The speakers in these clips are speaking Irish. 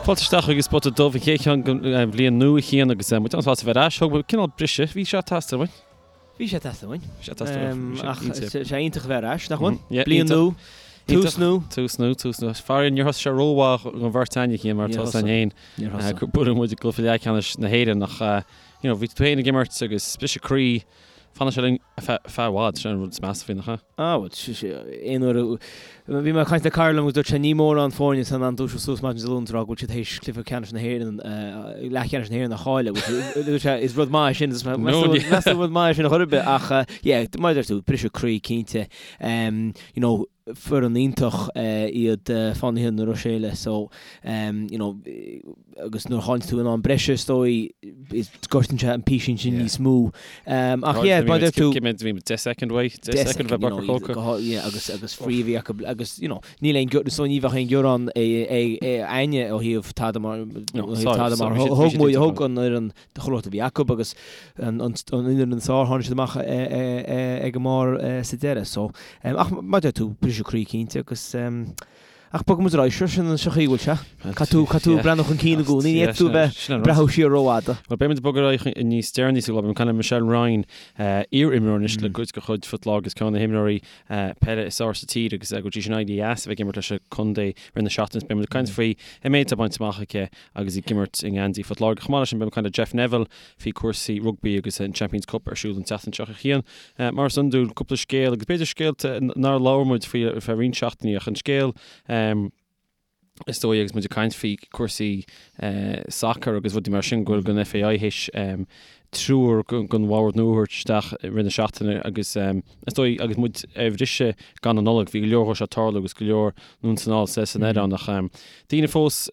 Fáilte isteach chuig An Spota Dubh, an chéad cheann den bhliain nua a Chian agus muid an-sásta a bheith ar ais. Thóg muid cineál briseadh, bhí sé ag teastáil uainn. Bhí sé ag teastáil uainn. Bhí sé ag teastáil uainn. Ach tá sé iontach a bheith ar ais, nach bhfuil? Bliain nua, tús nua. Tús nua, tús nua. Faraor níor thosaigh sé rómhaith don bheirt againn a Chian mar tá a fhios againn féin. Níor thosaigh. Gur buaileadh muid i gcluiche leathcheannais na hÉireann ach you know bhí tú féin ag imirt agus briseadh croí. Fanfaidh sé linn ar feadh i bhfad, sin an rud is measa faoi, nach ea? Ah, bhuel, aon uair a. Bhí mé ag caint le cara liom agus dúirt sé ní mórán foirne atá in ann dúiseacht suas maidin Dé Luain is a rá go bhfuil siad théis cluiche ceannais na hÉireann, leathcheannais na hÉireann a chailleadh. Dúirt sé, is rud maith é sin, meas tú rud maith é sin a chor ar bith ach yeah, mar a deir tú, briseadh croí cinnte. You know, foireann iontach iad Fánaithe na Ruiséile so you know agus nuair a chailleann tú in am breise is dóigh is gortaíonn sé an písín sin níos mó. Ach yeah, mar a deir tú. Cé mhéad bhí 10 second uaidh, 10 second bheith bacach cóca. Yeah, agus agus free a bhí acu agus you know níl aon so ní bheadh aon ghearán againne ó thaobh tada mar ó thaobh tada mar thug muid thug an fhoireann chuile shórt a bhí acu agus an fhoireann is fearr tháinig siad amach ag an mbarr sa deireadh. So, ach mar a deir tú, briseadh croí cinnte agus ach bogfaidh muid ar aghaidh, sure, sin an chaoi a bhfuil sé. Caithfidh tú, caithfidh tú breathnú chun cinn i gcónaí, ní fhéadfaidh tú a bheith ag breathnú siar rófhada. Bhuel, beidh muid ag bogadh ar aghaidh níos deireanaí sa gclár, beidh muid ag caint le Michelle Ryan, iar-imreoir anois le cuid de chuid Phort Láirge agus ceann de na himreoirí peile is fearr sa tír agus go dtí sin éirithe as a bheith ag imirt leis an contae rith na seachtaine. Beidh muid ag caint faoi an méid atá bainte amach aici agus í ag imirt i ngeansaí Phort Láirge. Chomh maith leis sin, beidh muid ag caint le Jeff Neville faoi cúrsaí rugbaí agus an Champions Cup ar siúl an tseachtain seo a Chian. Mar is iondúil, cúpla scéal agus b'fhéidir scéalta nár labhair muid faoi ar feadh roinnt seachtainí ach an scéal is dóigh agus muid ag caint faoi cúrsaí sacair agus rudaí mar sin go bhfuil an FAI théis triúr den bhord nua a thabhairt isteach i rith na seachtaine agus is dóigh agus muid ar bhriseadh gan an Nollaig bhí go leor dhó seo ag tarlú agus go leor anonn is anall san aer ann ach daoine fós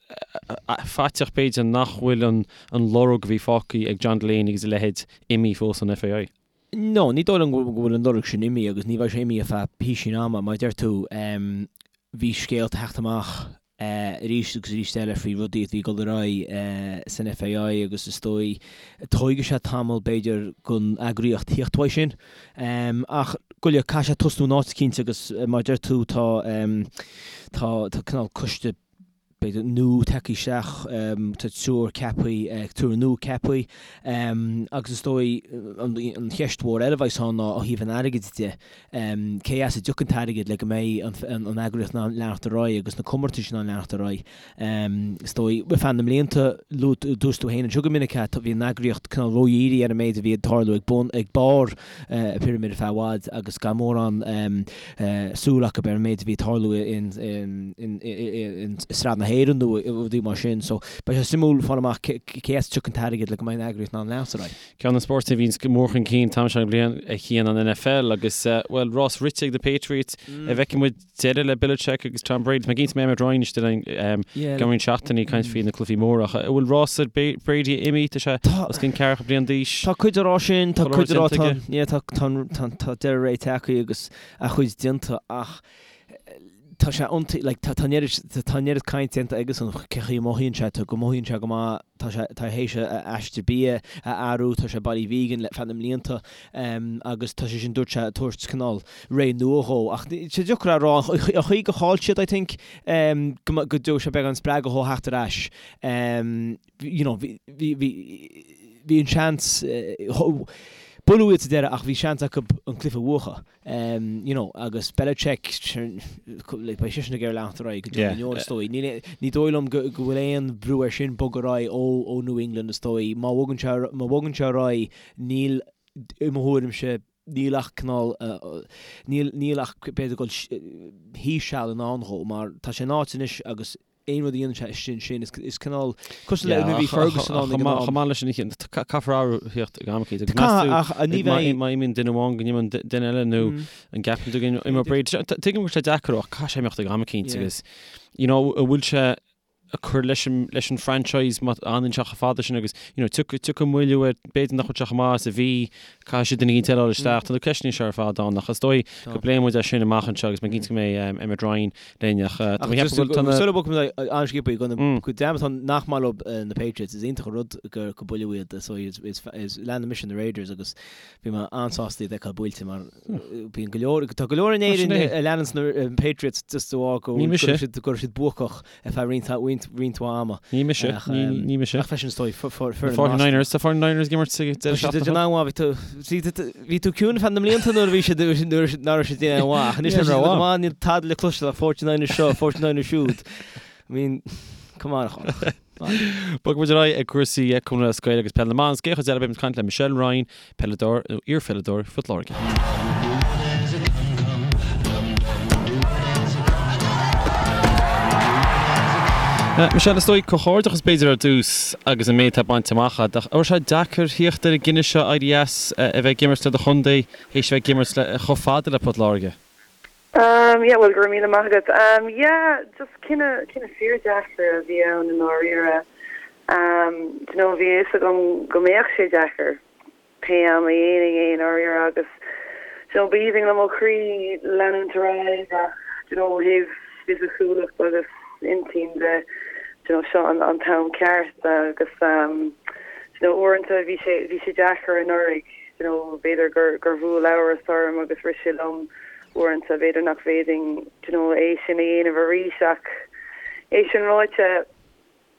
faiteach b'fhéidir nach bhfuil an an lorg a bhí fágtha ag John Delaney agus a leithéid imithe fós ón FAI. No, ní dóigh liom go bhfuil an lorg sin imithe agus ní bheidh sé imithe ar feadh písín ama. Mar a deir tú, bhí scéalta ag teacht amach arís agus arís eile faoi rudaí a bhí ag dul ar aghaidh san FAI agus is dóigh tógfaidh sé tamall b'fhéidir don eagraíocht theacht uaidh sin. Ach go leor, caithfidh sé tosnú in áit eicínt agus mar a deir tú tá tá tá cineál coiste b'fhéidir nua tagtha isteach, tá triúr ceaptha, triúr nua ceaptha agus is dóigh an cheist mhór eile a bheas ann ná ó thaobh an airgid de. Cé as a dtiocfaidh an t-airgead le go mbeidh an eagraíocht in ann leanacht ar aghaidh agus na comórtais in ann leanacht ar aghaidh? Is dóigh, ar feadh na mblianta, luaigh dúirt tú féin anseo go minic é, bhí an eagraíocht cineál ródhírithe ar an méid a bhí ag tarlú ag bun, ag barr an phirimid ar feadh i bhfad agus gan mórán súil acu ar an méid a bhí ag tarlú i Sraith na hÉireann nó rudaí mar sin. So, beidh sé suimiúil fáil amach cé as a dtiocfaidh an t-airgead le go mbeidh an eagraíocht in ann leanacht ar aghaidh. Ceann de na spóirt a bhíonns go mór chun cinn an t-am seo den bhliain a Chian an NFL agus, bhuel, rás rite ag na Patriots. An bhfeicfidh muid deireadh le Belichick agus Tom Brady? Tá mé cinnte go mbeidh Emmet Ryan istigh linn i gceann roinnt seachtainí ag caint faoi na cluichí móra ach an bhfuil rás Brady imithe? Tá sé os cionn ceathracha bliain d'aois. Tá cuid á rá sin, tá cuid á rá tá, yeah, tá, tá, tá deireadh ré tagtha agus a chuid déanta ach tá sé iontaigh, like, tá an oiread, tá an oiread caint déanta aigesan cé chaoi a mothaíonn sé, tá, go mothaíonn sé go maith, tá sé, tá théis a aistear bia a athrú, tá sé bailí vegan le feadh na mblianta agus tá sé sin, dúirt sé, ag tabhairt cineál ré nua dhó. Ach tá sé deacair a rá, an chaoi gur chaill siad, I think, go go dtabharfaidh sé beagán spreagadh dhó theacht ar ais. You know, bhí, bhí, bhí, bhí an seans, buaileadh iad sa deireadh ach bhí seans acu an cluiche a bhuachan. You know, agus Belichick, like, beidh seisean ag iarraidh leanacht ar aghaidh go deo na ndeor, is dóigh. Níl, ní dóigh liom go, go bhfuil aon bhrú air sin bogadh ar aghaidh ó, ó New England, is dóigh. Má bhogann sé, má bhogann sé ar aghaidh, níl, i mo thuairimse, níl ach cineál, níl, níl ach b'fhéidir dul thíos seal i ndán dhó, mar tá sé in áit anois agus aon rud a dhéanann sé istigh ansin, is cineál cosúil le nuair a bhí Ferguson ann ag an am. Chomh maith leis sin, caithfear athrú a theacht ag am eicínt. Caithfidh, ach ní bheidh. Má imíonn duine amháin go n-imíonn duine eile nó an gceapann tú go n-imeoidh Brady. Tuigim go bhfuil sé deacair ach caithfidh sé imeacht ag am eicínt agus you know an bhfuil sé ag cur leis an leis an franchise má fhanann sé chomh fada sin agus you know tiocfaidh moilliú air b'fhéidir nach bhfuil sé chomh maith is a bhí Caithfidh siad duine éicint eile a fháil isteach. Tá na ceisteanna seo ar fad ann ach is dóigh go bpléifidh muid é sin amach anseo agus mé cinnte go mbeidh Emmet Ryan linn ach tá mé ag ceapadh go bhfuil tá na. Sula bhfágfaidh muid an-sciobtha go na go deimhin tá nach maith leo na Patriots is iontach an rud gur go buaileadh iad so is is leanann mise na Raiders agus bhí mé an-sásta iad a fheiceáil buailte mar bíonn go leor tá go leor in Éirinn a leanann na Patriots just de bharr go raibh siad go raibh siad buacach ar feadh roinnt roinnt. roinnt roinnt mhaith ama. Ní mise, Ach, ní um, ní mise. Ach freisin is dóigh foireann 49ers, tá 49ers ag imirt sa deireadh Tá siad seachtaine. an-mhaith, bhí tú bhí tú bhí tú ciúin feadh na mblianta nuair a bhí siad nuair a nach raibh siad déanamh mhaith. Ach anois tá siad go maith níl tada le cloisteáil ach 49ers seo, 49ers siúd. I mean, come on a Chonach. Bogfaidh muid ar aghaidh ag cúrsaí Cumann Lúthchleas Gael agus Peil na mBan. Sa gcéad chuid eile beidh muid ag caint le Michelle Ryan, peileadóir nó iarpheileadóir Phort Láirge. Michelle, is dóigh comhghairdeachas b'fhéidir ar dtús agus an méid atá bainte amach agat. Ach an raibh sé deacair theacht ar an gcinneadh seo éirí as a bheith ag imirt le do chontae théis a bheith ag imirt le chomh fada le Port Láirge? Um yeah bhuel go raibh míle maith agat. Um yeah just cinneadh cinneadh fíordheacair a bhí ann i ndáiríre. Um do you know bhí a fhios agam go mbeadh sé deacair pé am a dhéanfainn é i ndáiríre agus do you know b'aoibhinn liom ó chroí leanúint ar aghaidh ach do you know ó thaobh fisiciúlacht agus intinn de do you know seo an an t-am ceart agus um do you know uaireanta bhí sé bhí sé deacair anuraidh do you know b'fhéidir gur gur bhuail amhras orm agus rith sé liom Uaireanta, b'fhéidir nach bhféadfainn do you know é sin a dhéanamh arís ach é sin ráite,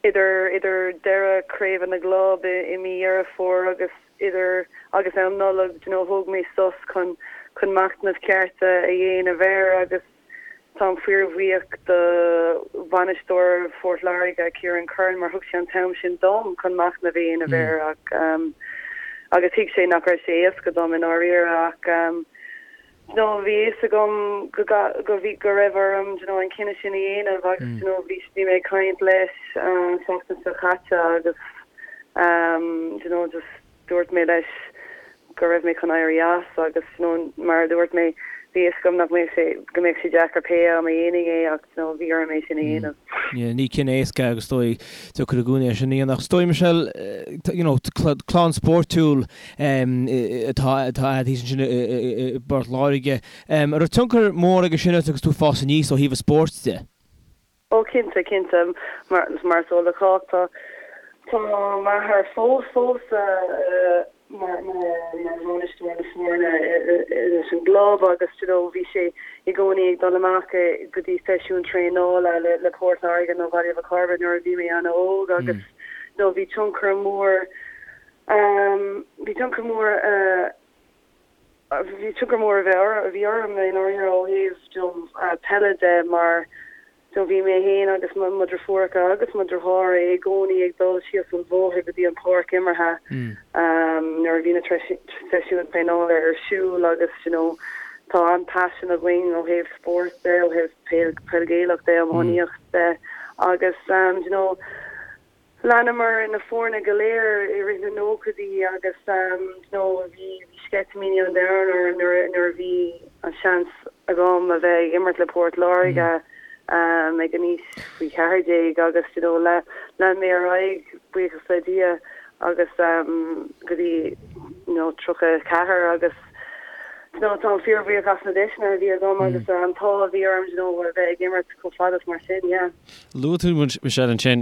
idir idir deireadh Craoibhe na gClub i i mí Dheireadh Fómhair agus idir agus am Nollag do you know thóg mé sos chun chun machnamh ceart a dhéanamh air agus táim fíorbhuíoch do bhainisteoir Phort Láirge, Ciarán Curran, mar thug sé an t-am sin dom chun machnamh a dhéanamh air ach agus thuig sé nach raibh sé éasca dom i ndáiríre ach you know bhí a fhios agam go go bhí go raibh orm you know an cinneadh sin a dhéanamh agus you know bhí bhí mé ag caint leis an tseachtain seo caite agus um you know just dúirt mé leis go raibh mé chun éirí as agus you know mar a dúirt mé bhí a fhios agam nach mbeadh sé go mbeadh sé deacair pé am a dhéanfainn é ach you know bhí orm é sin a dhéanamh. Yeah, ní cinneadh éasca agus is dóigh deacair i gcónaí é sin a dhéanamh. Ach is dóigh Michelle you know clann spórtúil atá agat thíos ansin i bPort Láirge. An raibh tionchar mór aige sin ort agus tú ag fás aníos ó thaobh an spóirt de? Ó cinnte, cinnte. Mar mar is eol do chách tá tá m'athair fós fós mar mar mar bhainisteoir na foirne leis an gclub agus you know bhí sé i gcónaí ag dul amach go dtí seisiúin traenála le le Port Láirge nó Baile Mhic Cairbre nuair a bhí mé an-óg agus you know bhí tionchar mór Bhí tionchar mór bhí tionchar mór a bheith a bhí orm i ndáiríre ó thaobh you know peile de mar you know bhí mé féin agus mo mo dheirfiúracha agus mo dheartháir i gcónaí ag dul síos an bhóthar go dtí an páirc imeartha nuair a bhí na seisiúin traenála ar siúl agus you know tá an-paisean againn ó thaobh spóirt de, ó thaobh peil peil Ghaelach de, iománaíocht de agus you know Leanamar na foirne go léir i rith na nóchaidí agus you know bhí sceitimíní an domhain orm nuair nuair a bhí an seans agam a bheith ag imirt le Port Láirge ag an aois faoi 14 agus you know lean mé ar aghaidh buíochas le Dia agus go dtí you know 34 agus you know táim fíorbhuíoch as na deiseanna a bhí agam agus an t-ádh a bhí orm you know a bheith ag imirt chomh fada is mar sin yeah. Luaigh tú, Michelle, ansin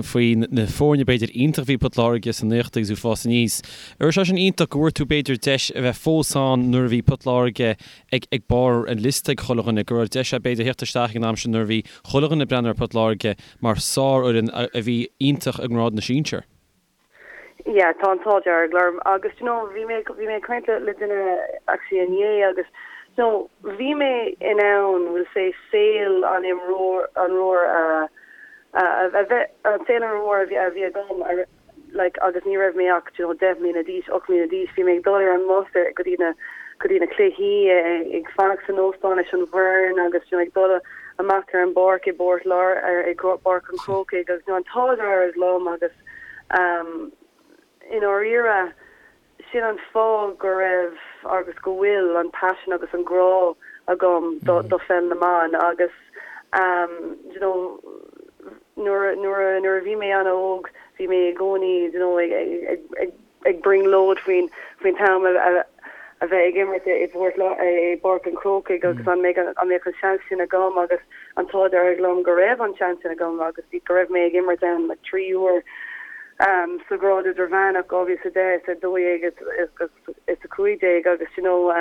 faoi na foirne b'fhéidir iontach a bhí ag Port Láirge sna nóchaidí agus tú ag fás aníos. An raibh sé sin iontach go bhfuair tú b'fhéidir deis a bheith fós ann nuair a bhí Port Láirge ag ag barr an liosta ag chuile dhuine, go raibh deis agat b'fhéidir theacht isteach ag an am sin nuair a bhí chuile dhuine ag breathnú ar Port Láirge mar sárfhoireann a bhí iontach i ngrád na sinsear? Yeah, tá an t-ádh dearg orm agus do you know bhí mé bhí mé ag caint le le duine actually inné agus you know bhí mé in ann we'll say saol an imreoir imreoir a a a bheith an saol an imreoir a bhí a bhí agam a like agus ní raibh mé ach do you know 10 mbliana d'aois, 8 mbliana d'aois, bhí mé ag dul ar an mbus ar go dtí na go dtí na cluichí ag fanacht san óstán leis an bhfoireann agus you know ag dul amach ar an bpáirc i bPort Lár ar i bPáirc an Chrócaigh agus you know an t-ádh dearg liom agus I ndáiríre, sin an fáth go raibh agus go bhfuil an paisean agus an grá agam do pheil na mban agus you know nuair nuair nuair a bhí mé an-óg bhí mé i gcónaí you know ag ag ag ag brionglóid faoin faoin t-am a a bheith ag imirt i bPort i bPáirc an Chrócaigh agus an mbeidh an mbeadh an seans sin agam agus an t-ádh dearg liom go raibh an seans sin agam agus go raibh mé ag imirt ann like 3 uair sa ghrád idirmheánach, 2010, 12 is 15 agus you know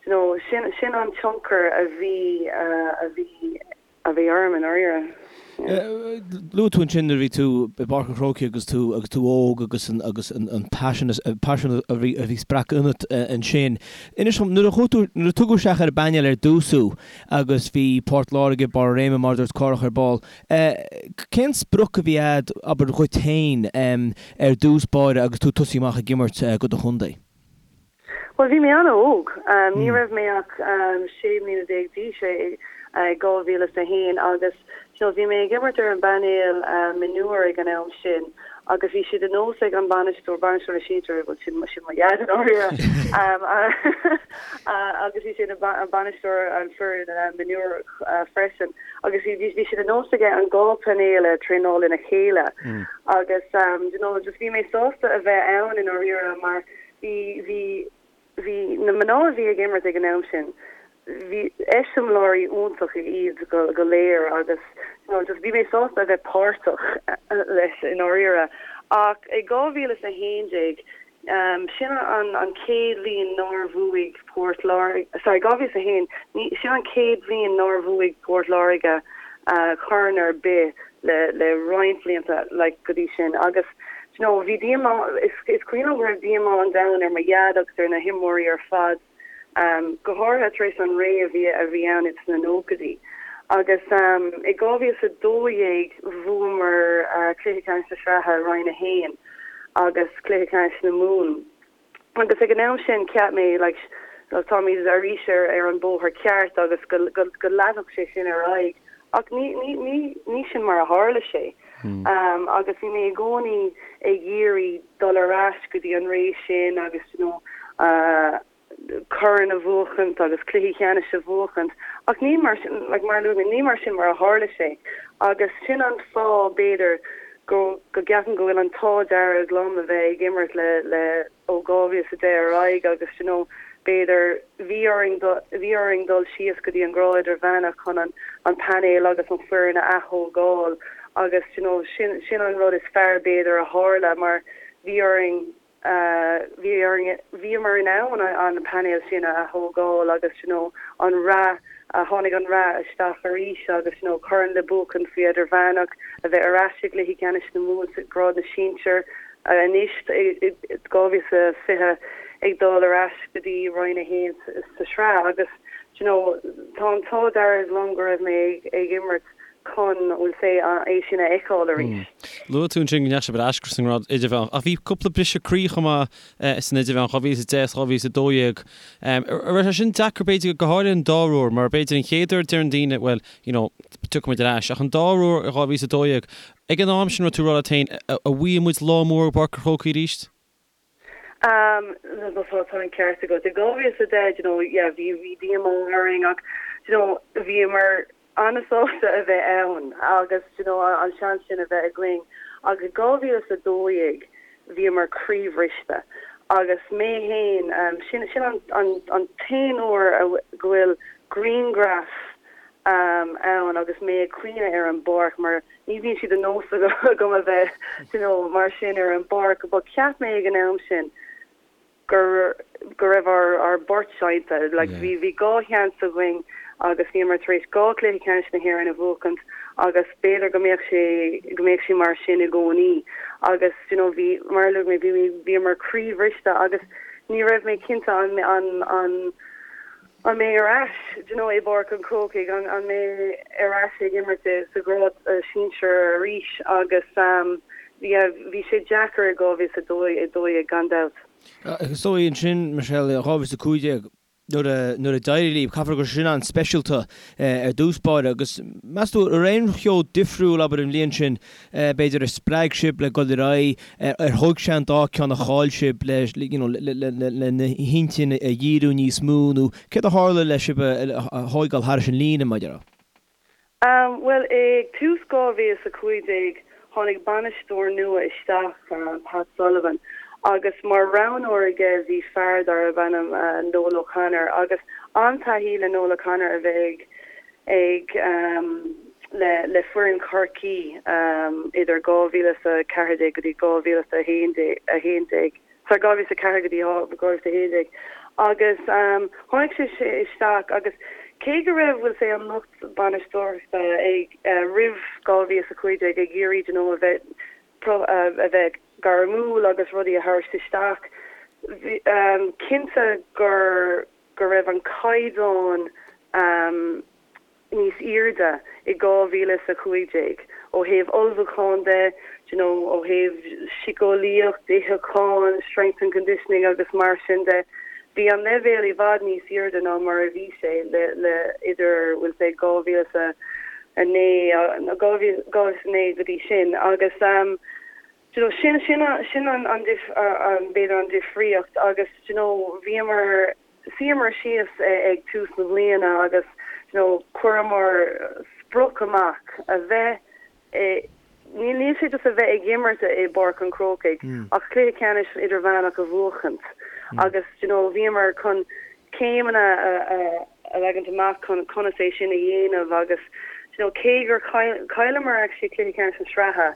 you know sin sin an tionchar a bhí a bhí a bhí orm i ndáiríre. Luaigh tú ansin nuair a bhí tú i bPáirc an Chrócaigh agus tú agus tú óg agus an agus an an paisean paisean a bhí a bhí spreagtha ionat ansin. Inis dom, nuair a chuaigh tú nuair a tugadh isteach ar an bpainéal ar dtús thú agus bhí Port Láirge, Barr a Réime mar a dúirt Cárthach ar ball, cén sprioc a bhí a'd, abair dhuit féin, ar dtús báire agus tú ag tosaí amach ag imirt do do chontae? Bhuel, bhí mé an-óg. Ní raibh mé ach 16 mbliana d'aois i 2001 agus you know bhí mé ag imirt ar an bpainéal mionúr ag an am sin agus bhí sé de nós ag an bainisteoir, bainisteoir na sinsear, bhuel sin sin mo dhaid i ndáiríre, agus bhí sé ina bainisteoir an foireann mionúr freisin agus bhí bhí sé de nós aige an dhá painéal a traenáil lena chéile agus you know just bhí mé sásta a bheith ann i ndáiríre mar Bhí, bhí, bhí na mná a bhí ag imirt ag an am sin, bhí eiseamláirí iontacha iad go, go léir agus you know just bhí mé sásta a bheith páirteach leis i ndáiríre. Ach i 2011, sin an, an chéad bhliain nár bhuaigh Port Láirge, sorry, 2001, ní, sin an chéad bhliain nár bhuaigh Port Láirge corn ar bith le, le roinnt blianta like go dtí sin agus you know bhí díomá, is cuimhin liom go raibh díomá an domhain ar mo dhaid agus ar na himreoirí ar fad, go háirithe tar éis an ré a bhí a bhí ann ins na nóchaidí. Agus i 2012 bhuamar cluiche ceannais na sraithe Roinn 1 agus cluiche ceannais na Mumhan. Agus ag an am sin cheap mé like táimid arís ar ar an bóthar ceart agus go go go leanfadh sé sin ar aghaidh ach ní ní ní ní sin mar a tharla sé. Agus bhí mé i gcónaí ag iarraidh dul ar ais go dtí an ré sin agus you know corn a bhuachaint agus cluichí ceannais a bhuachaint ach ní mar sin like mar a luaigh mé ní mar sin mar a tharla sé agus sin an fáth b'fhéidir go go gceapaim go bhfuil an t-ádh dearg liom a bheith ag imirt le le ó 2010 ar aghaidh agus you know b'fhéidir bhí orainn bhí orainn dul síos go dtí an grád idirmheánach chun an an painéal agus an foireann a aththógáil agus you know sin sin an rud is fearr b'fhéidir a tharla mar bhí orainn bhí orainn, bhíomar in ann an painéal sin a aththógáil agus you know an rath, tháinig an rath isteach arís agus you know corn le buachan faoi idirmheánach, a bheith ar ais i gcluichí ceannais na Mumhan sa grád na sinsear anois i 2020 ag dul ar ais go dtí Roinn 1 sa sraith agus you know tá an t-ádh dearg liom go raibh mé ag imirt chun, we'll say, é sin a fheiceáil arís. Luaigh tú ansin go ndeachaigh sibh ar ais go dtí an ngrád idirmheánach, ach bhí cúpla briseadh croí chomh maith san idirmheánach, 2010 is 2012. An raibh sé sin deacair, b'fhéidir, go háirithe an dara huair, mar b'fhéidir an chéad uair deireann daoine, bhuel, you know, tiocfaidh muid ar ais, ach an dara huair i 2012, ag an am sin raibh tú ag rá leat féin, an bhfaighidh muid lá mór i bPáirc an Chrócaigh arís? Tá an ceart agat. I 2010, you know, yeah, bhí bhí díomá orainn ach, you know, bhíomar an-sásta a bheith ann agus, you know, an seans sin a bheith againn. Ach i 2012, bhíomar croíbhriste agus mé fhéin, sin sin an an an t-aon uair a go bhfuil grianghraf ann agus mé ag caoineadh ar an bpáirc mar ní bhíonn sé de nós agam a bheith you know mar sin ar an bpáirc but cheap mé ag an am sin gur go raibh ár ár bport seinnte like bhí bhí dhá sheans againn agus bhíomar tar éis dhá chluiche ceannais na hÉireann a bhuachaint agus b'fhéidir go mbeadh sé go mbeadh sé mar sin i gcónaí agus you know bhí mar a luaigh mé bhí bhíomar croíbhriste agus ní raibh mé cinnte an an an An mbeidh ar ais, do you know, i bPáirc an Chrócaigh, an an mbeidh ar ais ag imirt sa ghrád sinsir arís agus yeah, bhí sé deacair i 2012 gan dabht. Is dóigh ansin, Michelle, 2015, nuair a nuair a d'éirigh libh, caithfear go raibh sin an-speisialta ar dtús báire agus meas tú, an raibh aon cheo difriúil, abair, an bhliain sin, b'fhéidir, a spreag sibh le dul ar aghaidh, ar thóg sé an dá ceann a chaill sibh le you know le na hintinn a dhíriú níos mó nó céard a tharla le sibh a thóigeáil thairis an líne, mar a déarfá? Bhuel, ag tús 2015 tháinig bainisteoir nua isteach, Pat Sullivan, agus mar roghnóir aige bhí fear darb ainm Noel O'Connor agus an-taithí le Noel O'Connor a bheith ag ag le le foireann Chorcaí idir 2014 go dtí 2011, sorry 2004 go dtí 2011 agus tháinig sé isteach agus. cé go raibh, bhfuil 's a'd, an lucht bainisteoireachta ag, roimh 2015 ag iarraidh, you know, a bheith, a bheith gairmiúil agus rudaí a thabhairt isteach, bhí, cinnte gur, go raibh an caighdeán, níos airde i 2015 ó thaobh ullmhúcháin de, do you know, ó thaobh síceolaíocht, itheachán, strength and conditioning agus mar sin de. Bhí an leibhéal i bhfad níos airde ná mar a bhí sé le le idir bhfuil 's a'd 2009 nó 2009 go dtí sin agus do you know sin sin sin an an b'fhéidir an difríocht agus do you know bhíomar Shuíomar síos ag tús na bliana agus you know chuireamar sprioc amach a bheith i, níl sé just a bheith ag imirt i bPáirc an Chrócaigh ach cluiche ceannais idirmheánach a bhuachaint agus you know bhíomar chun céimeanna a leagaint amach chun conas é sin a dhéanamh agus you know cé gur chailleamar actually cluiche ceannais na sraithe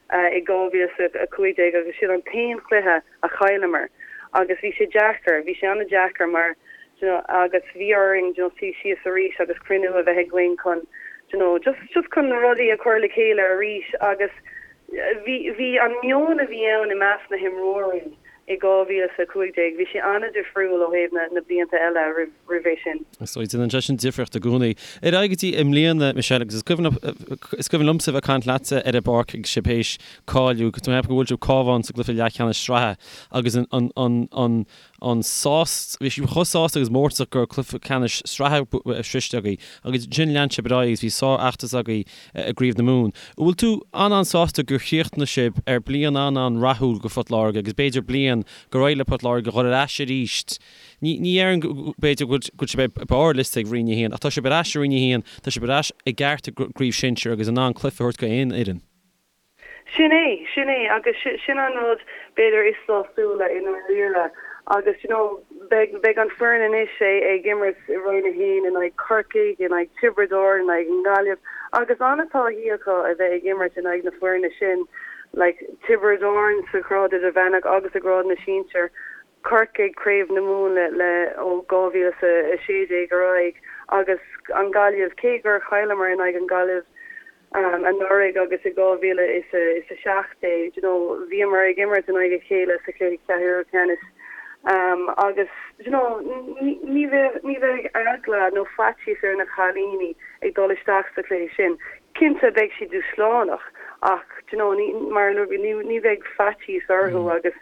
i 2015 agus sin an t-aon chluiche a chailleamar agus bhí sé deacair, bhí sé an-deacair mar do you know agus bhí orainn do you know suí síos arís agus cruinniú a bheith againn chun do you know just just chun na rudaí a chur le chéile arís agus bhí bhí an meon a bhí ann i measc na himreoirí i 2015 bhí sé an-difriúil ó thaobh na na blianta eile roimh roimh é sin. Is dóigh, déanann sé sin difríocht i gcónaí. Ar aghaidh go dtí i mbliana, Michelle, agus is cuimhin is cuimhin liomsa a bheith ag caint leatsa ar an bpáirc agus sibh théis cáiliú, tá mé ag ceapadh go bhfuail sibh Cabhán sa gcluiche leathcheannais sraithe agus an an an an an sás, bhí sibh chomh sásta agus mórtasach go raibh cluiche ceannais sraithe sroiste agaibh agus ansin lean sibh ar aghaidh agus bhí sárfheachtas agaibh i gCraobh na Mumhan. An bhfuil tú an-an-sásta gur chríochnaigh sibh ar bliain an-an-rathúil go Phort Láirge agus b'fhéidir bliain gur éirigh le Port Láirge dhul ar ais arís Ní ní déarfainn go b'fhéidir go bhfuil sibh ar barr liosta ag Roinn 1 ach tá sibh ar ais i Roinn 1, tá sibh ar ais i gceart i gCraobh Shinsir agus in ann cluiche a thabhairt go aon fhoireann. Sin é, sin é agus sin an rud b'fhéidir is sásúla i ndáiríre agus you know beidh beidh an foireann anois ag imirt i Roinn 1 in aghaidh Corcaigh, in aghaidh Tiobraid Árann, in aghaidh an Ghaillimh agus an-taithí acu a bheith ag imirt in aghaidh na foirne sin like Tiobraid Árann sa ghrád idirmheánach agus i grád na sinsear. Corcaigh, Craobh na Mumhan le le ó 2016 ar aghaidh agus an Ghaillimh, cé gur chailleamar in aghaidh an Ghaillimh anuraidh agus i 2017, you know, bhíomar ag imirt in aghaidh a chéile sa chluiche ceathrú ceannais agus you know, ní bheidh ní bheidh eagla nó faitíos ar na cailíní ag dul isteach sa chluiche sin. Cinnte beidh sé dúshlánach ach do you know ní mar a luaigh ní ní bheidh faitíos orthu agus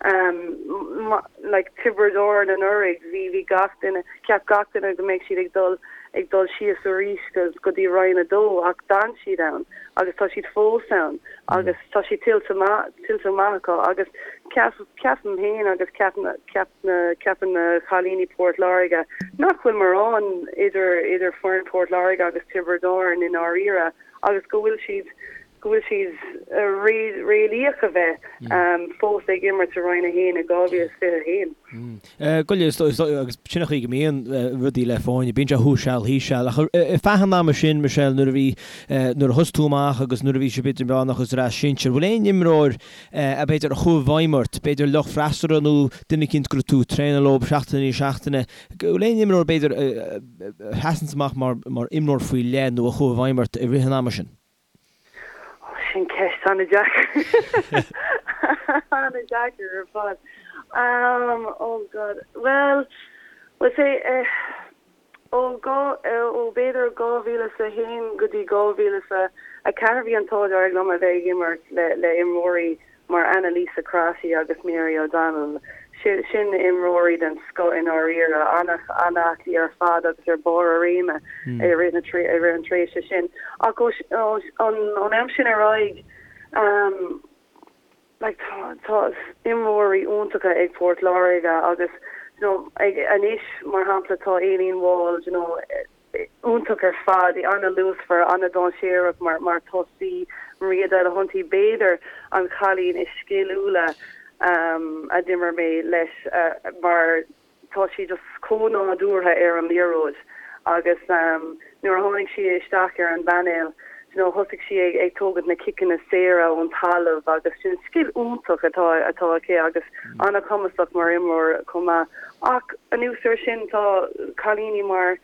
ehm like Tiobraid Árann anuraidh bhí bhí gach duine cheap gach duine go mbeidh siad ag dul ag dul síos arís go go dtí Roinn 2 ach d'fhan siad ann agus tá siad fós ann agus tá siad tuillte maith tuillte maith acu agus ceap ceapaim féin agus ceap ceap na ceapann na cailíní Port Láirge nach bhfuil mórán idir idir foireann Port Láirge agus Tiobraid Árann i ndáiríre agus go bhfuil siad go bhfuil siad réalaíoch a bheith fós ag imirt i Roinn 1 i 2021. Go is agus sin an chaoi go mbíonn rudaí le foirne, bíonn sé thuas seal thíos seal. Ach ar feadh an ama sin, Michelle, nuair a bhí nuair a thosaigh tú amach agus nuair a bhí sibh idirmheánach agus ar ais sinsir, bhfuil aon imreoir a b'fhéidir a chuaigh i bhfeidhm ort, b'fhéidir lucht freasúra nó duine eicínt go raibh tú ag traenáil leo seachtain i ndiaidh seachtaine, bhfuil aon imreoir b'fhéidir a sheasanns amach mar mar imreoir faoi leith nó a chuaigh i bhfeidhm ort i rith an ama sin? Ó, sin ceist an-deacair. An-deacair ar fad. Um, oh God. Well, we'll say, eh, Ó ó b'fhéidir 2001 go dtí 2004 bhí an t-ádh dearg liom a bheith ag imirt le le imreoirí mar Annalisa Crotty agus Mary O'Donnell. Sin sin imreoirí den scoth i ndáiríre, an-aclaí ar fad agus ar barr a réime i rith na i rith an tréimhse sin. Ach ó ón am sin ar aghaidh, Like tá tá imreoirí iontacha ag Port Láirge agus you know ag anois mar shampla tá Aileen Wall you know iontach ar fad, í an-luasmhar, an-dainséarach mar mar tosaí, Maria Delahunty b'fhéidir an chailín is sciliúla um a d'imir mé leis uh mar tá sí just chomh nádúrtha ar an liathróid agus nuair a tháinig sí isteach ar an bpainéal you know thosaigh sí ag ag tógaint na ciceanna saora ón talamh agus sin scil iontach atá atá aici agus an-chumasach mar imreoir chomh maith. Ach anuas air sin tá cailíní mar.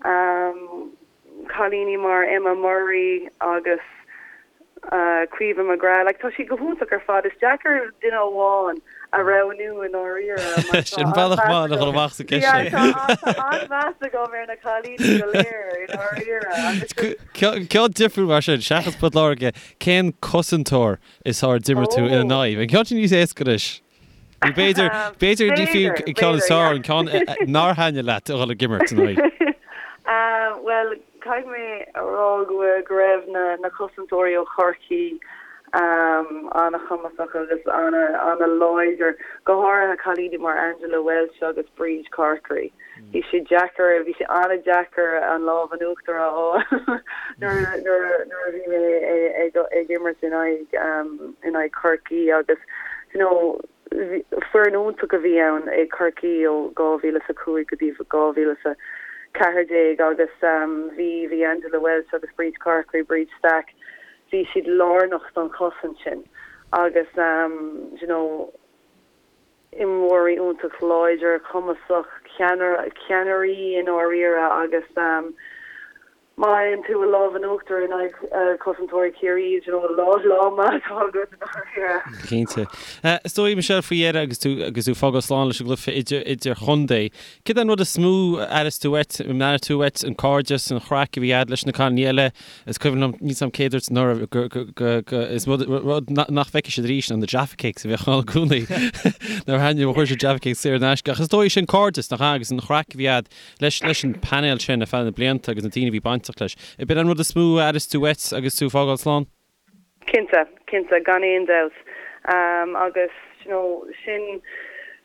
Cailíní mar Emma Murray agus Caoimhe McGrath, like tá siad go hiontach ar fad. Is deacair duine amháin a roghnú i ndáiríre mar tá Sin bealach maith le dhul amach sa gceist sin. Yeah, tá an-mheas agam ar na cailíní go léir i ndáiríre agus Ceann difriúil mar sin, seachas Port Láirge, cén cosantóir is fearr a d'imir tú ina n-aghaidh? An ceann sin níos éasca anois. Nó b'fhéidir, b'fhéidir ní fiú an ceann is fearr, an ceann nár thaitnigh leat a dhul ag imirt ina aghaidh. Bhuel, caithfidh mé a rá go bhfuil, go raibh na, na cosantóirí ó Chorcaí an-chumasach agus an-láidir, go háirithe cailíní mar Angela Walsh agus Bríd Corkery. Bhí sé deacair, bhí sé an-deacair an lámh in uachtar a fháil nuair, nuair, nuair a bhí mé ag, ag imirt in aghaidh, in aghaidh Chorcaí agus you know foireann iontach a bhí ann ag Corcaí ó 2005 go dtí 2014 agus bhí, bhí Angela Walsh agus Bríd Corkery, Bríd Stack, bhí siad lárnach don chosaint sin agus you know, imreoirí iontach láidir, cumasach, ceannairí i ndáiríre agus má fhaigheann tú an lámh in uachtar in aghaidh cosantóirí Chiarraí, you know, lá lá maith atá agat i ndáiríre. Cinnte. Is dóigh, Michelle, faoi dheireadh agus tú agus tú ag fágáil slán leis an gcluiche idir idirchontae, céard é an rud is mó a aireos tú uait, an aireoidh tú uait an cairdeas, an chraic a bhí a'd leis na cailíní eile, Is cuimhin liom, níl 's a'm cé a dúirt anuraidh go, go, go, go, is rud, rud nach bhfeicfidh siad arís ná na Jaffa Cakes a bheadh ann i gcónaí. Nuair a thaitnigh, chuir siad Jaffa Cakes saor in aisce. Ach is dóigh sin cairdeas, nach ea, agus an chraic a bhí a'd leis, leis an painéal sin ar feadh na blianta agus na daoine a bhí bainteach leis. Ab in an rud is mó a aireos tú uait agus tú ag fágáil slán? Cinnte, cinnte, gan aon dabht. Agus, you know, sin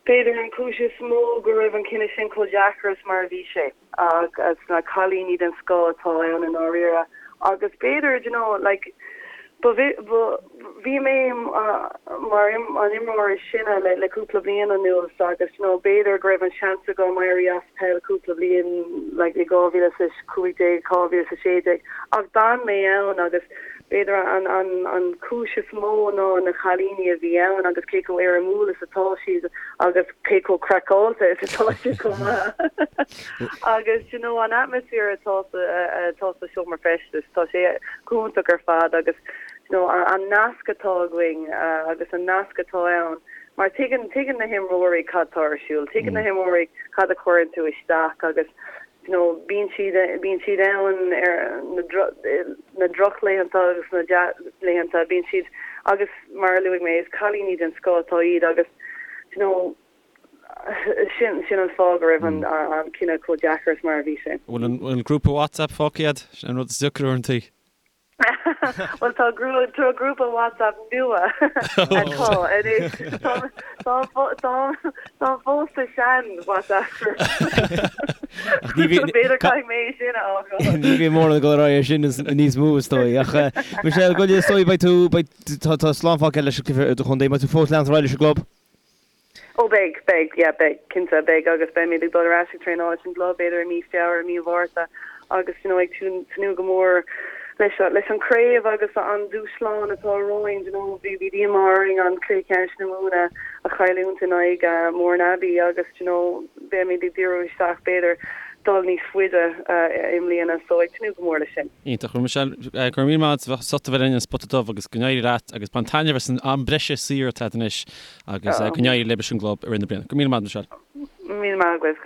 b'fhéidir an chúis is mó go raibh an cinneadh sin chomh deacair is mar a bhí sé. Agus na cailíní den scoth atá ann i ndáiríre. Agus b'fhéidir, you know, like, ba, ba, bhí mé mar an imreoir is sine le, le cúpla bliain anuas agus, you know, b'fhéidir go raibh an seans agam éirí as peil cúpla bliain, like, i 2015, 2016 ach d'fhan mé ann agus, B'fhéidir an chúis is mó ná na cailíní a bhí ann agus cé chomh éirimiúil is atá siad agus cé chomh craiceáilte is atá siad chomh maith. Agus you know an atmaisféar atá atá sa seomra feistis, tá sé go hiontach ar fad agus you know an nasc atá againn agus an nasc atá ann mar tuigeann tuigeann na himreoirí cad tá ar siúl, tuigeann na himreoirí cad a chuireann tú isteach agus you know bíonn siad bíonn siad ann ar na na drochlaethanta agus na dea-laethanta bíonn siad agus mar a luaigh mé is cailíní den scoth atá iad agus you know sin sin an fáth go raibh an an cinneadh chomh deacair is mar a bhí sé. Bhfuil an an grúpa WhatsApp fágtha agat? Sin an rud is deacra uaireanta. Bhuel tá tá grúpa WhatsApp nua atá anois. Tá tá fós sa sean WhatsApp group. B'fhéidir caithfidh mé é sin a fhágáil. Ní bhíonn mórán ag dul ar aghaidh ar sin níos mó is dóigh. Ach Michelle, go is dóigh beidh tú beidh tá tá slán fágtha leis an gcluiche idirchontae. Beidh tú fós leanacht ar aghaidh leis an gclub? Ó beidh, beidh, yeah beidh, cinnte beidh agus beimid ag dul ar ais ag traenáil leis an gclub b'fhéidir i mí Feabhra, mí Mhárta agus you know ag tnúth go mór leis leis an craobh agus an dúshlán atá romhainn, you know bhí bhí díomá orainn an cluiche ceannais na Mumhan a a chailliúint in aghaidh Mourneabbey agus you know beimid ag díriú isteach b'fhéidir dul níos faide i mbliana so ag tnúth go mór leis sin. Iontach. Bhuel Michelle, go raibh míle maith agat as ucht a bheith linn ar An Spota Dubh agus go n-éirí leat agus bain taitneamh as an am breise saor atá agat anois Agus go n-éirí libh leis an gclub i rith na bliana. Go raibh míle maith agat, Michelle. Míle maith agaibh.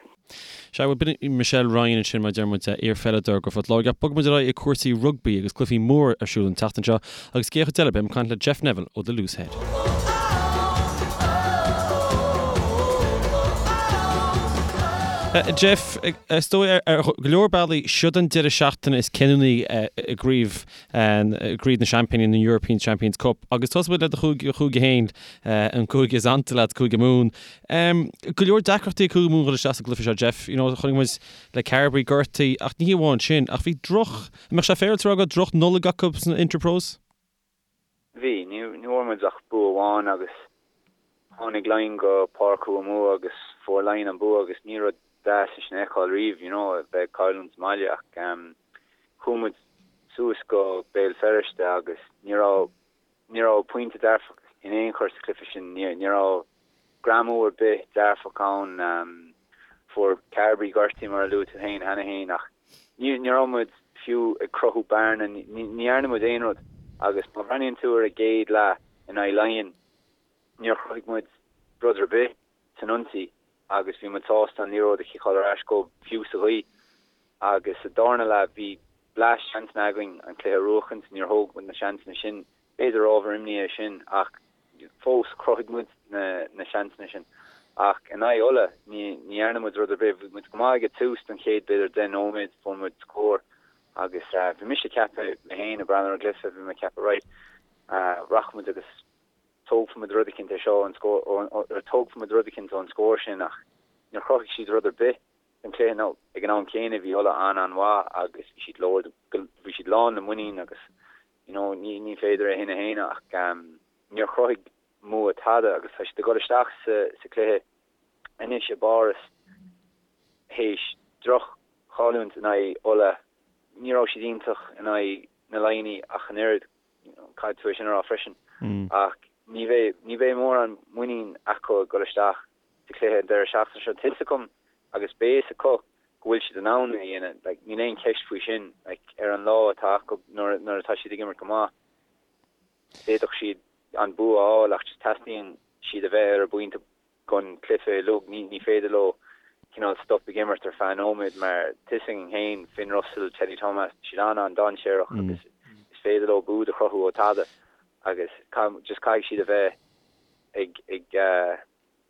Sea, bhuel, b'in í Michelle Ryan ansin, mar a deir muid, iarpheileadóir do Phort Láirge. Ach bogfaidh muid ar aghaidh ag cúrsaí rugbaí agus cluichí móra ar siúl an tseachtain seo agus cé chuid eile, beidh mé ag caint le Jeff Neville ó The Loose Head. Jeff, is dóigh ar go leor bealaí, siod an deireadh seachtaine is cinniúnaí i gcraobh gCraobh na Seaimpíní, na European Champions Cup, agus tosóidh muid le do chúige, chúige féin, an cúige is ansa leat, Cúige Mumhan. Go leor deacrachtaí ag Cúige Mumhan dhul isteach sa gcluiche seo, Jeff. You know, chonaic muid le Carbery gortaithe, ach ní hé amháin sin, ach bhí droch, an mbeadh sé féaráilte a rá go raibh droch Nollaig acu sna Interpros? Bhí, ní bhfuair muid ach bua amháin agus tháinig Laighin go Páirc Thuamumha agus fuair Laighin an bua agus ní rud deas é sin a fheiceáil riamh, you know, a bheith ag cailliúint sa mbaile ach chuaigh muid suas go Béal Feirste agus ní raibh, ní raibh pointe dearfach in aon chor sa chluiche sin, ní, ní raibh greamú ar bith dearfach ann. Fuair Carbery gortú mar a luaigh tú féin cheana féin ach. Ní raibh muid fiú ag cruthú bearna, ní dhearna muid aon rud agus má bhreathnaíonn tú ar an gcéad leath in aghaidh Laighean, níor chruthaigh muid rud ar bith san ionsaí agus bhí muid sásta an liathróid a chiceáil ar ais dóibh fiú sa ghaoth. Agus sa darna leath bhí blast seansanna againn an cluiche a bhuachaint, níor thóg muid na seansanna sin. B'fhéidir ábhar imní é sin ach fós chruthaigh muid na seansanna sin. Ach in aghaidh Uladh ní dhearna muid rud ar bith. Bhí muid go maith ag an tús don chéad b'fhéidir 10 nóiméad, fuair muid scór agus bhí mise ag ceapadh, mé féin ag breathnú ar an gcluiche, bhí mé ag ceapadh right, rachaidh muid agus tógfaidh muid rud eicínt é seo ón scór, tógfaidh muid rud eicínt ón scór sin ach níor chruthaigh siad rud ar bith don chluiche nó ag an am céanna bhí Uladh an-an-mhaith agus bhí siad lord, bhí siad lán le muinín agus you know ní ní féidir é sin a shéanadh ach níor chruthaigh Mumha tada agus tá siad ag dul isteach sa sa chluiche anois i bPáras théis droch-chailliúint in aghaidh Uladh. Ní raibh siad iontach in aghaidh na Laighnigh ach an oiread, caithfidh tú é sin a rá freisin, ach ní bheidh ní bheidh mórán muinín acu ag dul isteach sa chluiche an deireadh seachtaine seo. Tá fhios acu agus beidh fhios acu go bhfuil siad in ann é a dhéanamh. Like, níl aon cheist faoi sin. Like, ar an lá atá acu nuair, nuair atá siad ag imirt go maith, d'fhéadfadh siad an bua a fháil ach just teastaíonn siad a bheith ar a bpointe don chluiche uilig. Ní, ní féidir leo cineál stop ag imirt ar feadh nóiméad mar tá fhios againn féin, Finn Russell, Teddy Thomas, tá siad an-an-dainséarach agus is féidir leo bua a chruthú ó tada agus just caithfidh siad a bheith ag, ag,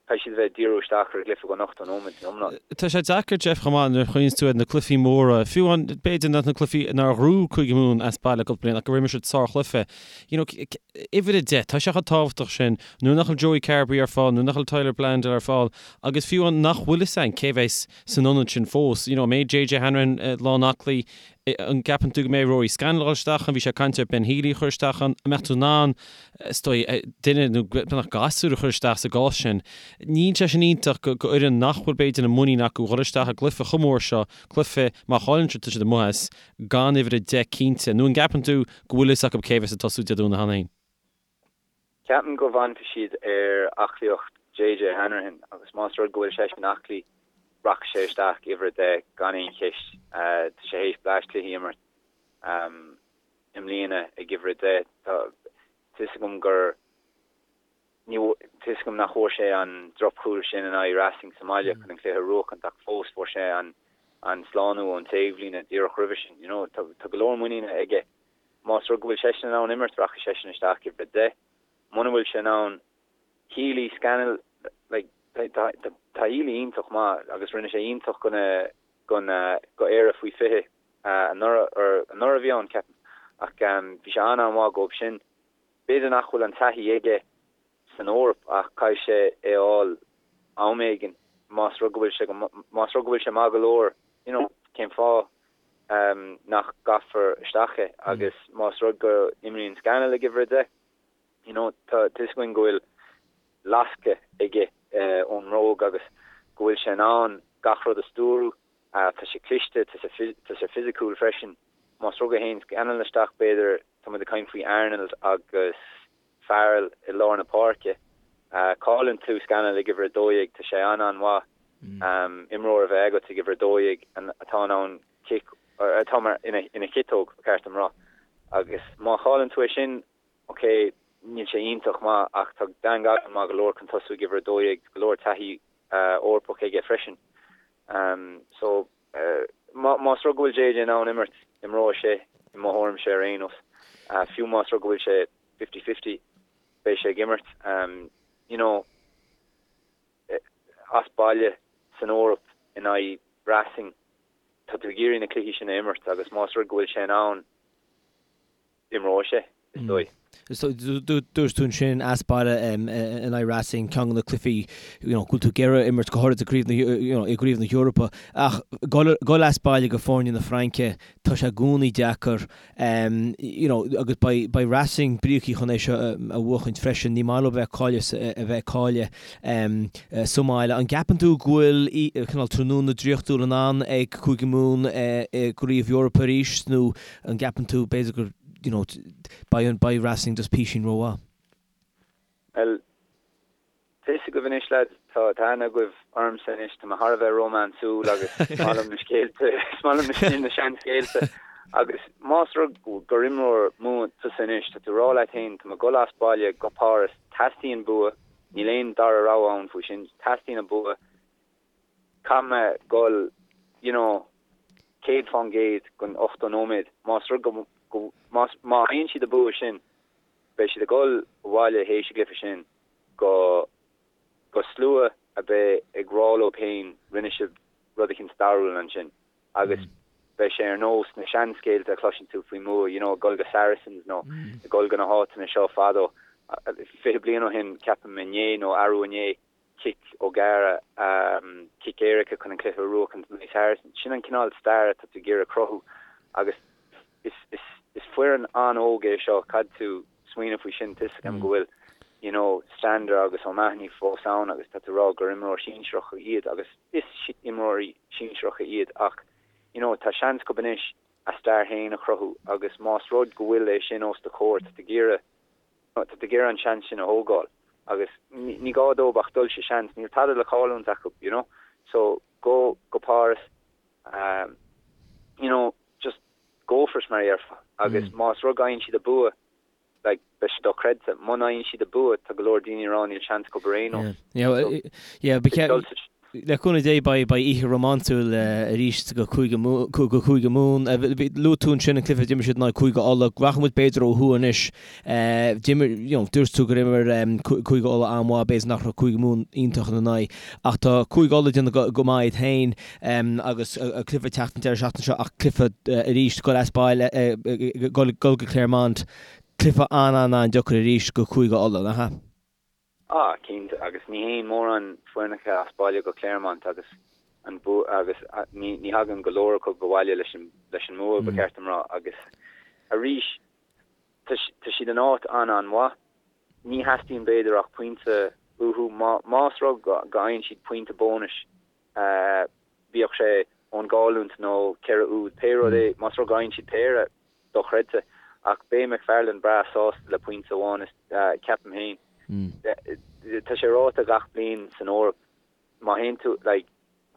Caithfidh siad a bheith ag díriú isteach ar an gcluiche don 80 nóiméad san iomlán. Tá sé deacair, Jeff, chomh maith nuair a chuimhníonns tú ar na cluichí móra, fiú amháin b'fhéidir nach na cluichí nár ghnóthaigh Cúige Mumhan as baile cúpla bliain ach gur imir siad sárchluiche. You know, uimhir a 10, tá sé chomh tábhachtach sin nuair nach bhfuil Joey Carbery ar fáil, nuair nach bhfuil Tyler Bleyendaal ar fáil agus fiú amháin nach bhfuil fhios a'inn cé bheas san ionad sin fós. You know, an mbeidh JJ Hanrahan lán aclaí An gceapann tú go mbeidh Rory Scannell ag dul isteach ann? Bhí sé ag caint ar Ben Healy a chur isteach ann. An mbeadh tú in ann, is dóigh, duine nó beagnach gasúr a chur isteach sa gcás sin? Níl sé sin iontach go fhoireann nach bhfuil b'fhéidir an muinín acu dhul isteach i gcluiche chomh mór seo, cluiche má chailleann siad tá siad amuigh as, gan uimhir 10 cinnte. Nó an gceapann tú go bhfuil fhios acu cé bheas ag tosú Dé Domhnaigh cheana féin? Ceapaim go bhfanfaidh siad ar aclaíocht JJ Hanrahan agus más rud go bhfuil seisean aclaí, rachaidh sé isteach uimhir 10 gan aon cheist. Tá sé théis bleaist cluichí a imirt i mbliana ag uimhir 10. Tá fhios agam gur ní tá fhios agam nach bhfuair sé an drochchúl sin in aghaidh Racing sa mbaile chun an cluiche a bhuachaint ach fós fuair sé an an slánú ón taobhlíne díreach roimhe sin. You know, tá go leor muiníne aige. Más rud go bhfuil seisean in ann imirt, rachaidh seisean isteach uimhir 10. Muna bhfuil sé in ann, Healy, Scannell, like, tá, tá, tá Healy iontach maith agus rinne sé iontach go na, go na, go Éire faoi 20 anuraidh, or anuraidh a bhí ann, ceapaim. Ach bhí sé an-an-mhaith dhóibh sin. B'fhéidir nach bhfuil an taithí aige san Eoraip ach caithfidh sé é a fháil am éigin más rud go bhfuil sé go, más rud go bhfuil sé maith go leor, you know, cén fáth nach gcaithfear isteach é agus más rud go n-imríonn Scannell ag uimhir 10, you know, tá fhios againn go bhfuil lascadh aige ón mbróg agus go bhfuil sé in ann gach rud a stiúradh, tá sé cliste, tá sé fisiciúil freisin. Más rud go théann Scannell isteach b'fhéidir, tá muid ag caint faoi Arnold agus Farrell i lár na páirce. Cailleann tú Scannell ag uimhir 12, tá sé an-an-mhaith imreoir a bheith agat ag uimhir 12 atá in ann cic, atá mar ina chiotóg, ba cheart dom rá. Agus má chailleann tú é sin, ok, níl sé iontach maith ach tá Dan Godwin maith go leor chun tosú ag uimhir 12, go leor taithí Eorpach aige freisin. So, más rud go bhfuil JJ in ann imirt, imreoidh sé, i mo thuairimse ar aon nós. Fiú más rud go bhfuil sé 50-50, beidh sé ag imirt. You know, as baile san Eoraip in aghaidh Racing, tá tú ag iarraidh na cluichí sin a imirt agus más rud go bhfuil sé in ann, imreoidh sé, is dóigh. Dúirt tú ansin as baile in aghaidh Racing, ceann de na cluichí you know, go bhfuil tú ag iarraidh imirt go háirid i gcraobh na, you know, i gcraobh na hEorpa. Ach dul as baile go foirne na Fraince, tá sé i gcónaí deacair. You know, agus beidh, beidh Racing bríocaí chun é seo a bhuachaint freisin. Ní maith leo bheith cailleadh, a bheith ag cailleadh sa mbaile. An gceapann tú go bhfuil cineál tráthnóna draíochtúil in ann ag Cúige Mumhan i gcraobh Eorpa arís nó An gceapann tú, b'fhéidir gur, you know, beidh, beidh Racing just písín rómhaith? Bhuel, tá fhios. fhios agaibh anois lads, tá tá aithne agaibh ormsa anois, tá mé thar a bheith rómánsúil agus is maith liom na scéalta, is maith liom na seanscéalta agus más rud gur imreoir Mumhan tusa anois, tá tú ag rá leat féin, tá mé ag dul as baile go Páras, teastaíonn bua, níl aon dara rogha ann faoi sin, teastaíonn an bua, caithfidh mé dul you know 100% don 80 nóiméad, más rud go, go, más, má fhaigheann siad an bua sin, Beidh siad ag dul abhaile théis an gcluiche sin go go slua a bheidh ag rá leo féin rinne sibh rud eicínt stairiúil ansin agus beidh sé ar nós na seanscéalta a chloiseann tú faoi Mumha, you know, ag dul go Saracens nó ag dul go na háiteanna seo fadó, 20 bliain ó shin ceapaim inné nó arú inné. cic O'Gara, cic éirice chun an cluiche a bhuachan in aghaidh Saracens. Sin an cineál stair atá tú ag iarraidh cruthú agus is foireann an-óg é seo, caithfidh tú smaoineamh faoi sin, tá 'fhios agam go bhfuil you know Stander agus O'Mahony fós ann agus tá tú ag rá gur imreoir sinsearacha iad agus is imreoirí sinsearacha iad ach you know tá seans acu anois a stair féin a chruthú agus más rud go bhfuil é sin os do chomhair tá tú ag iarraidh Tá tú ag iarraidh an seans sin a thógáil agus ní gá dóibh ach dul sa seans, níl tada le cailliúint acu, you know. So go go Páras, um, you know, just go for it mar a dhéarfá agus más rud go bhfaigheann siad an bua, like, beidh sé dochreidte. Muna bhfaigheann siad an bua, tá go leor daoine ag rá níl seans acu ar aon nós. Yeah, yeah, yeah, so, dul sa Le cúnamh Dé beidh oíche rómánsúil arís go Cúige Mumhan. Luaigh tú ansin an cluiche a d'imir siad in aghaidh Cúige Uladh. Rachaidh muid b'fhéidir ó thuaidh anois. D'imir, you know, dúirt tú gur imir Cúige Uladh an-mhaith, b'fhéidir nach raibh Cúige Mumhan iontach ina n-aghaidh. Ach tá Cúige Uladh ag déanamh go maith iad féin agus cluiche ag teacht an deireadh seachtaine seo ach cluiche arís dul as baile, dul go Clermont, cluiche an-an-an-deacair arís go Cúige Uladh, nach ea? Ah, cinnte, agus ní théann mórán foirneacha as baile go Clermont agus an bua agus ní ní thagann go leor acu abhaile leis an leis an mbua, ba cheart dom rá, agus arís tá tá siad in áit an-an-mhaith. Ní theastaíonn b'fhéidir ach pointe uathu. Má más rud go go bhfaigheann siad pointe bónais, bíodh sé ón gcailliúint nó 4 úd, pé rud é, más rud go bhfaigheann siad péire, dochreidte. Ach beidh McFarland breá sásta le pointe amháin, ceapaim féin. Tá sé ráite gach bliain san Eoraip, má théann tú, like,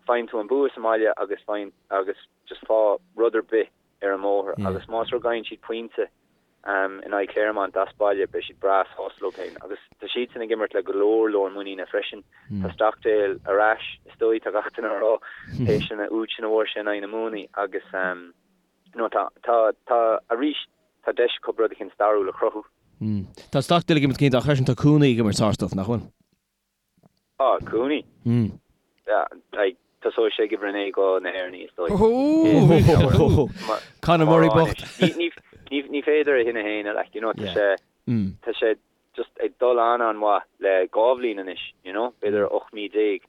faigheann tú an bua sa mbaile agus faigheann, agus just faigh rud ar bith ar an mbóthar agus más rud go bhfaigheann siad pointe in aghaidh Clermont as baile, beidh siad breá sásta leo féin. Agus tá siadsan ag imirt le go leor leor muiníne freisin. Tá Stockdale ar ais, is dóigh, tá gach duine ag rá, théis an úd sin a fuair sé in aghaidh na Muimhnigh agus, nó tá, tá, tá, arís, tá deis acu rud eicínt stairiúil a chruthú. Tá Stockdale ag imirt cinnte ach freisin tá Cooney ag imirt sár-stuif, nach bhfuil? Ah, Cooney? Yeah, like, tosóidh sé ag uimhir 9 go na hÉireannaigh, is dóigh. Conor Murray bocht. Ní, ní, ní féidir é sin a shéanadh, like, you know, tá sé, tá sé just ag dul an-an-mhaith le 2 bhliain anois, you know, b'fhéidir 18 mí.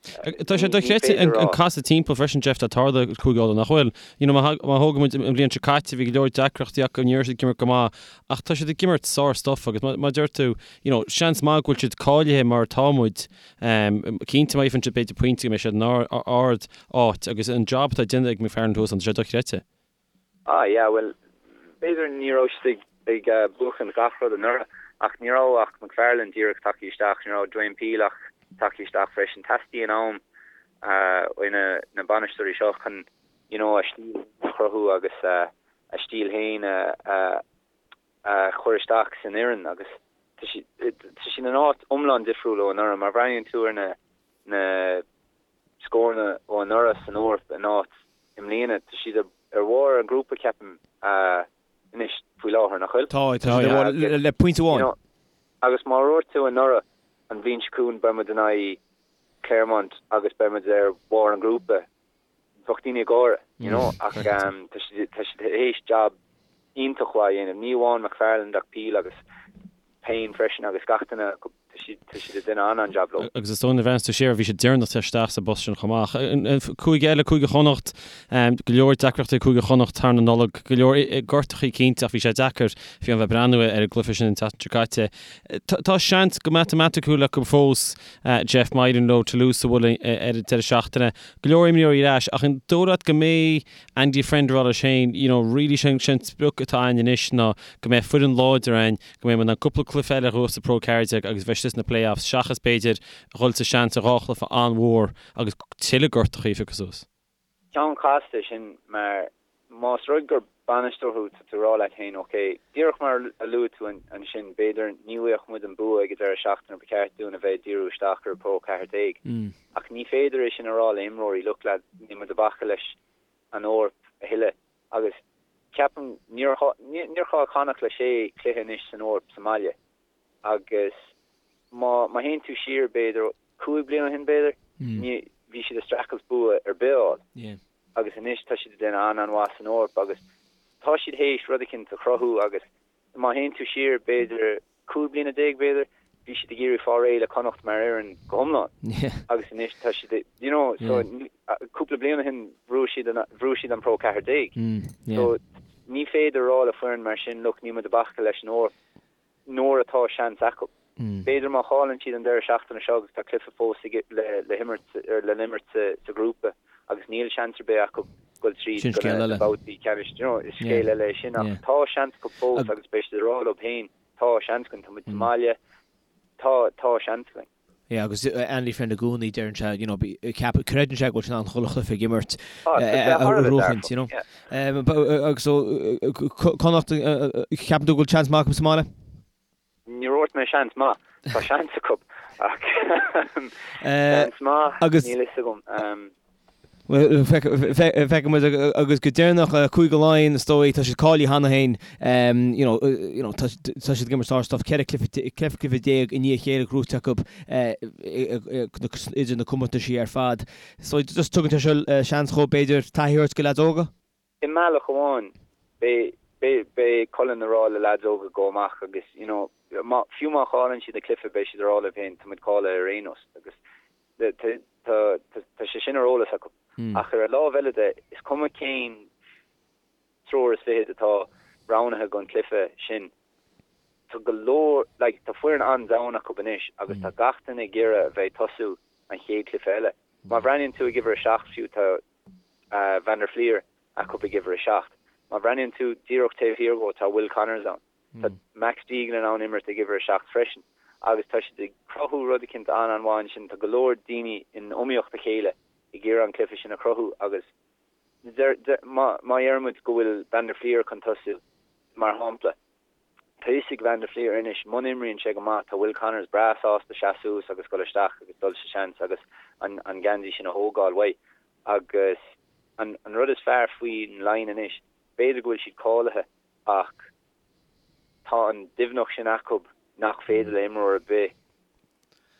Tá sé dochreidte an casadh timpeall freisin, Jeff, atá tarlaithe ag Cúige Uladh, nach bhfuil? You know, má thógann muid an bhliain seo caite, bhí go leor deacrachtaí acu, ní raibh siad ag imirt go maith, ach tá siad ag imirt sár-stuff agus mar a deir tú, you know, seans maith go bhfuil siad cáilithe mar atá muid, cinnte má fhaigheann siad b'fhéidir pointe go mbeidh siad in ard áit agus an job atá déanta ag McFarland thuas ann, tá sé dochreidte. Ah yeah, bhuel, b'fhéidir ní raibh siad ag buachan gach rud anuraidh, ach ní raibh ach McFarland díreach tagtha isteach, ní raibh Dwayne Peel ach tagtha isteach freisin. Teastaíonn am ó na bainisteoirí seo chun you know a stíl a chruthú agus a stíl féin a chur isteach san fhoireann agus tá siad in áit iomlán difriúil ó anuraidh. Má bhreathnaíonn tú ar na na scóranna ó anuraidh san Eoraip in áit i mbliana. Tá siad ar bharr an ghrúpa, ceapaim, anois faoi láthair, nach bhfuil? Tá, tá siad ar bharr le pointe amháin. Agus má dúirt tú anuraidh, an bhliain seo chugainn beidh muid in aghaidh Clermont agus beidh muid ar bharr an ghrúpa, bheadh daoine ag gáire, you know, ach tá siad tá siad théis jab iontach mhaith a dhéanamh, ní amháin McFarland ach Peel agus Payne freisin agus gach duine acu, tá siad tá siad ag déanamh an-an-jab leo. Agus is dóigh nuair a bhreathnaíos tú siar, bhí siad deireanach isteach sa bpost sin chomh maith. Cúige eile, Cúige Chonnacht, go leor deacrachtaí ag Cúige Chonnacht thar na Nollag, go leor gortachaí cinnte ach bhí sé deacair fiú a bheith ag breathnú ar an gcluiche sin an tseachtain seo caite. Tá seans go matamaiticiúil acu fós, Jeff, má éiríonn leo Toulouse a bhualadh ar an deireadh seachtaine. Go leor imreoirí ar ais ach an dóigh leat go mbeidh Andy Friend ag rá leis féin, you know, really sé an sprioc atá againn anois ná go mbeidh foireann láidir againn, go mbeidh muid in ann cúpla cluiche eile a ghnóthú sa Pro 14 agus bheidh. istigh sna play-offs seachas b'fhéidir a dhul sa seans ar dhá chluiche an-mhór agus tuilleadh gortachaí a phiocadh suas. Ceann casta é sin mar más rud gur bainisteoir thú tá tú ag rá leat féin ok, díreach mar a luaigh tú ansin, b'fhéidir ní bhfuigheadh muid an bua ag an deireadh seachtaine ba cheart dúinn a bheith ag díriú isteach ar Pro 14 ach ní féidir é sin a rá le imreoirí, look lad, níl muid ag bacadh leis an Eoraip a thuilleadh agus ceapaim níor níor chaill Connacht le sé chluiche anois san Eoraip sa mbaile agus má má théann tú siar b'fhéidir 5 bliana ó shin b'fhéidir ní bhí siad ag streachailt bua ar bith a fháil agus anois tá siad ag déanamh an-an-mhaith san Eoraip agus tá siad théis rud eicínt a chruthú agus má théann tú siar b'fhéidir 15 bliana b'fhéidir bhí siad ag iarraidh fáil réidh le Connacht mar fhoireann go hiomlán agus anois tá siad you know so cúpla bliain ó shin bhuaigh siad an bhuaigh siad an Pro 14 so ní féidir a rá le foireann mar sin look níl muid ag bacadh leis an Eoraip nuair atá seans acu. B'fhéidir má chailleann siad an deireadh seachtaine seo agus tá cluiche fós le himirt le n-imirt sa ghrúpa agus níl seans ar bith acu dul tríd go na babhtaí ceannais, you know, is scéal eile é sin ach tá seans acu fós agus beidh siad ag rá leo féin tá seans againn, tá muid sa mbaile, tá tá seans againn. Yeah, agus Andy Friend i gcónaí deireann sé, you know, ceap, creideann sé go bhfuil sé in ann chuile chluiche ag imirt a bhuachaint, you know. Agus so, Connacht, ceapann tú go bhfuil seans maith acu sa mbaile? Níor dhúirt mé seans maith, tá seans acu ach seans maith, níl fhios agam. Feicfidh muid agus go deireanach Cúige Laighean is dóigh, tá siad cáilithe cheana féin, you know, you know, tá siad ag imirt sár-stuff, 14 cluiche cluiche i ndiaidh a chéile gnóite acu idir na comórtaisí ar fad. So just tugann sé seo seans dhóibh b'fhéidir taithí a thabhairt do leaids óga? I mbealach amháin, beidh, beidh, beidh Cullen ag rá le leaids óga go amach agus, you know, má, fiú má chailleann siad an cluiche beidh siad ag rá leo féin tá muid cáilithe ar aon nós agus Tá sé sin ar eolas acu. Ach ar an lámh eile de, is cuma cén triúr is fichead atá roghnaithe don chluiche sin, tá go leor, like, tá foireann an-domhain acu anois agus tá gach duine ag iarraidh a bheith ag tosú an chéad chluiche eile. Má bhreathnaíonn tú ag uimhir a 7 fiú, tá Van der Flier acu ag uimhir a 7. Má bhreathnaíonn tú díreach taobh thiar dhó, tá Will Connors ann. Tá Max Deegan in ann imirt ag uimhir 7 freisin agus tá siad ag cruthú rud eicínt an-an-mhaith ansin. Tá go leor daoine in iomaíocht a chéile ag iarraidh an cluiche sin a chruthú agus má deireann muid go bhfuil Van der Flier chun tosú, mar shampla, tá fhios ag Van der Flier anois muna imríonn sé go maith tá Will Connors breá sásta seasamh suas agus dul isteach agus dul sa seans agus an geansaí sin a thógáil uaidh. Agus an rud is fearr faoin Laighin anois, b'fhéidir go bhfuil siad cáilithe ach tá an doimhneacht sin acu nach féidir le imreoir ar bith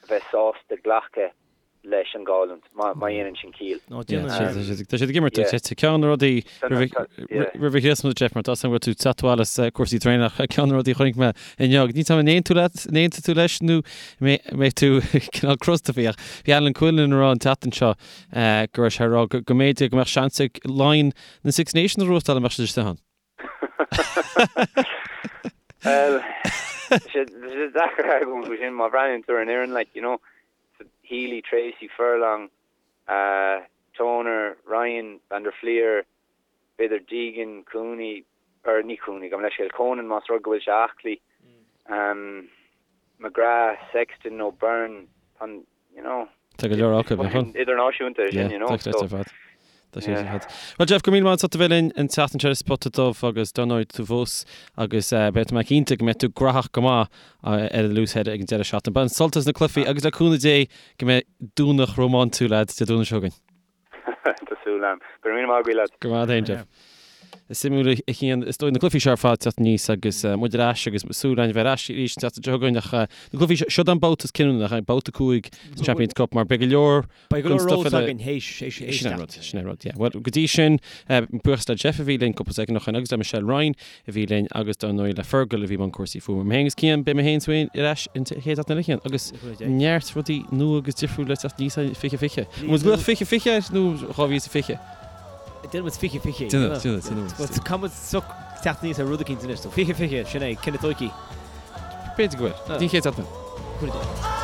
a bheith sásta glacadh leis an gcailliúint, má dhéanann sin ciall. Tá siad ag imirt ceann de na rudaí roimh an Chríosmas, Jeff, mar tá go bhfuil tú teacht abhaile as cúrsaí traenach, ceann de na rudaí a chonaic mé inniu, níl 's agam an aontóidh tú leis nó mbeidh tú cineál crosta faoi ach bhí Alan Quinlan ag rá an tseachtain seo go raibh sé ag rá go mb'fhéidir go mbeadh seans ag Laighin na Six Nations a ghnóthachtáil dá mbeadh siad istigh ann. Bhuel, tá sé deacair argóint faoi sin má bhreathnaíonn tú ar an fhoireann, like, you know, Healy, Treacy, Furlong, Toner, Ryan, Van der Flier, b'fhéidir Deegan, Cooney, or ní Cooney, gabh mo leithscéal, Conan más rud go bhfuil sé aclaí, McGrath, Sexton nó Byrne, tá an, you know. Tá go leor acu, nach bhfuil? Idirnáisiúnta é sin, you know, so. Tá ar fad. Tá sé ar fad. Bhuel Jeff, go raibh míle maith agat as ucht a bheith linn an tseachtain seo ar Spota Dubh agus dar ndóigh tú fós agus beidh mé cinnte go mbeidh tú graitheach go maith ar an Loosehead ag an deireadh seachtaine. Bain sult as na cluichí agus le cúnamh Dé go mbeidh Domhnach rómántúil agat Dé Domhnaigh seo chugainn. Tá súil agam. Go raibh míle maith agat, lads. Go raibh maith agat Jeff. Is suimiúil a Chian, is dóigh na cluichí seo ar fad teacht aníos agus muid ar ais agus súil againn a bheith ar ais arís an tseachtain seo chugainn ach na cluichí seo, seo an babhta is cinniúnach, an babhta 5 sa Champions Cup mar beidh go leor Beidh go leor stuff eile againn théis, théis, théis Sin é an rud, sin é an rud, yeah. Bhuel, go dtí sin, buíochas le Jeff a bhí linn cúpla soicind ó shin agus le Michelle Ryan a bhí linn agus dar ndóigh le Fergal a bhí i mbun cúrsaí fuaime. Mé féin agus Cian, beidh mé féin is ar ais an chéad seachtain eile Cian agus neart rudaí nua agus difriúil le teacht aníos in 2020. An bhfuil glaoch 2020 air nó 2020? Déanfaidh muid 2020. Déanfaidh, déanfaidh, déanfaidh. Caithfidh muid soc teacht aníos ar rud eicínt anois, so 2020, sin é, cinneadh tóigthe. B'fhéidir go bhfuil. Go dtí an chéad seachtain. Go dtí.